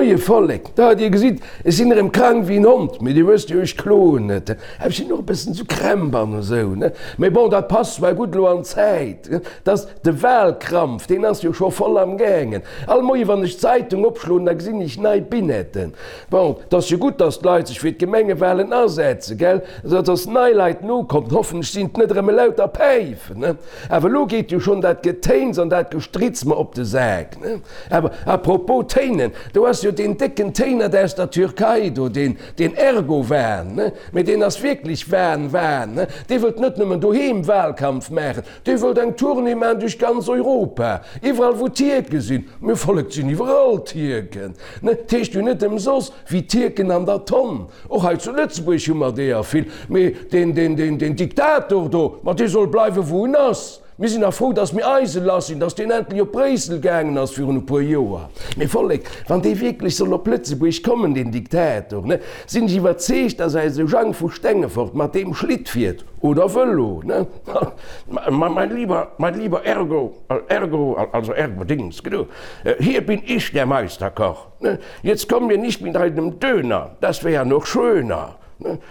Moie Vollek, da, dir gesitt, ech sinn erëm krank wéi en Hond, mee dir wësst jo, ech kloen net. Awer ech sinn och e bëssen esou Krämp an esou, ne? Mee bon, dat passt zwar gutt elo an d'Zäit, dass de Wahlkrampf, deen ass jo scho voll am gaangen. All Moie wann ech d'Zeitung opschloen, da gesinn ech nei Binetten. Bon, 't ass jo gutt, dass d'Leit sech fir d'Gemengewahlen asetzen, gell? Dass nei Leit nokommen, hoffentlech sinn 't net erëm elauter Päifen, ne? Awer elo geet jo schonn dat Getéins an dat Gestritz mer op de Sak, ne? Awer à propos Téinen, do ass jo deen décken Téinert aus der Türkei do, deen, deen Ergowan, ne? Mee deen ass wierklech Wan, Wan, ne? Dee wëllt net nëmmen doheem Wahlkampf maachen, dee wëllt eng Tournée maachen duerch ganz Europa, iwwerall wou Tierke sinn. Mir Vollek, 't sinn iwwerall Tierken, ne? 't heescht jo net ëmsoss wéi Tierken an der Tonn. Och hei zu Lëtzebuerg hu mer deeër vill. Mee deen, deen, deen, deen Diktator do, ma dee soll bleiwen, wou en ass. Mir sinn nach frou, datt mir eise lass sinn, datt deen endlech op Bréissel gaangen ass virun e puer Joer. Mee Vollek, wann dee wierklech soll op Lëtzebuerg kommen, deen Diktator, ne, sinn ech iwwerzeegt, datt eise Jang vu Stengefort mat deem Schlitt fiert oder Vëlo, ne? Ma mein lieber, mein lieber Ergo, Ergo, also Ergo Dings, genau, hier bin ich der Meisterkoch. Jetzt komm mir nicht mit einem Döner, das wär ja noch schöner,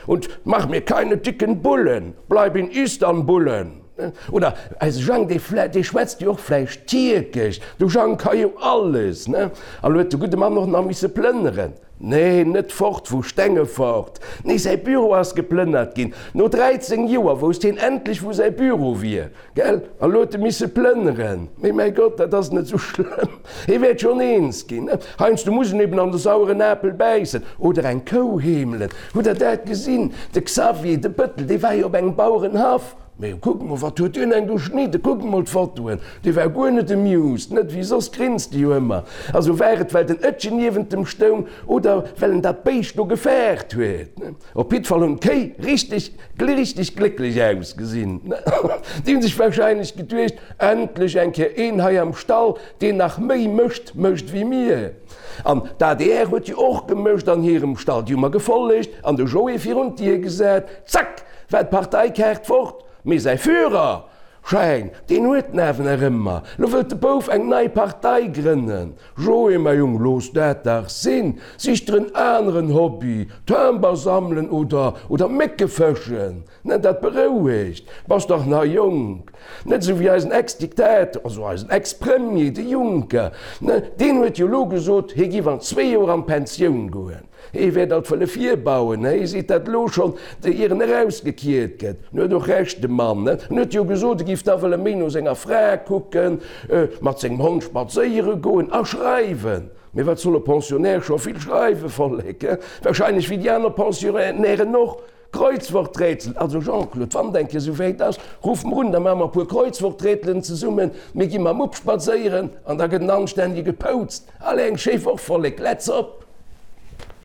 und mach mir keine dicken Bullen, bleib in Istanbullen. Oder eise Jang, dee dee schwätzt jo och vläicht Tierkesch, de Jang ka jo alles, ne? A lo huet de gudde Mann och nach misse plënneren. Nee, net fort vu Stengefort, nee, säi Büro ass geplënnert ginn. No 13 Joer wousst hien endlech, wou säi Büro wier. Gell? A lo huet e misse plënneren. Mee mäi Gott, dat ass net esou schlëmm. Hie wäert schonn eens ginn. Heiansdo muss en eben an de saueren Apel bäissen. Oder eng Kou heemelen. Hutt Der dat gesinn? De Xavier, de Bëttel, dee war jo op engem Bauerenhaff. Mee kuckt mol, wat huet deen eng geschnidden? Kuckt mol d'Fotoen. Dee war guer net amused. Net wéi soss grinst e jo ëmmer. Also war et, well den Ëttchen niewent em stoung oder well en dat Béischt do gefaart huet? Op jiddwer Fall hunn d'Kéi richteg, richteg glécklech ausgesinn. Déi hunn sech wahrscheinlech geduecht, Endlech eng Kéier een hei am Stall, deen nach méi Mëscht mécht wéi mir. An d'ADR huet jo och gemëscht an hirem Stall. Déi hu mer gefollegt an de Joé virun d'Dier gesat. Zack, war d'Parteikaart fort. Mee säi Führer Schein, deen huet en awer nach ëmmer. Lo wëllt de Bouf eng nei Partei grënnen. Joé, mäi Jong, looss dat dach sinn. Sich der en aneren Hobby, Timber sammelen oder oder Mécke fëschen, ne, dat berouegt. Bass dach nach jonk. Net esou wéi eisen Ex-Diktator, also eisen Ex-Premier, de Juncker, ne, deen huet jo elo gesot, hie giff an zwee Joer an d'Pensioun goen. Hee wäert alt wëlle virbauen, hee seet dat elo schonn, ier en erausgekiert gëtt. En huet och Recht, de Mann, ne? En huet jo gesot, e giff da wëlle méi no senger Fra kucken, mat sengem Hond spadséiere goen a schreiwen. Mee wat soll e Pensionnaire scho vill schreiwen, Vollek, he? Wahrscheinlech wéi déi aner Pensionnairen och. Kreuzworträtsel, Also Jean-Claude, wann et eng Kéier esou wäit ass, ruff mer un, da maache mer e puer Kreuzworträtelen zesummen, mir gi mam Mupp spadséieren an da gëtt en anstännege gepoutzt. Allez, eng schéi Woch, Vollek, let's op!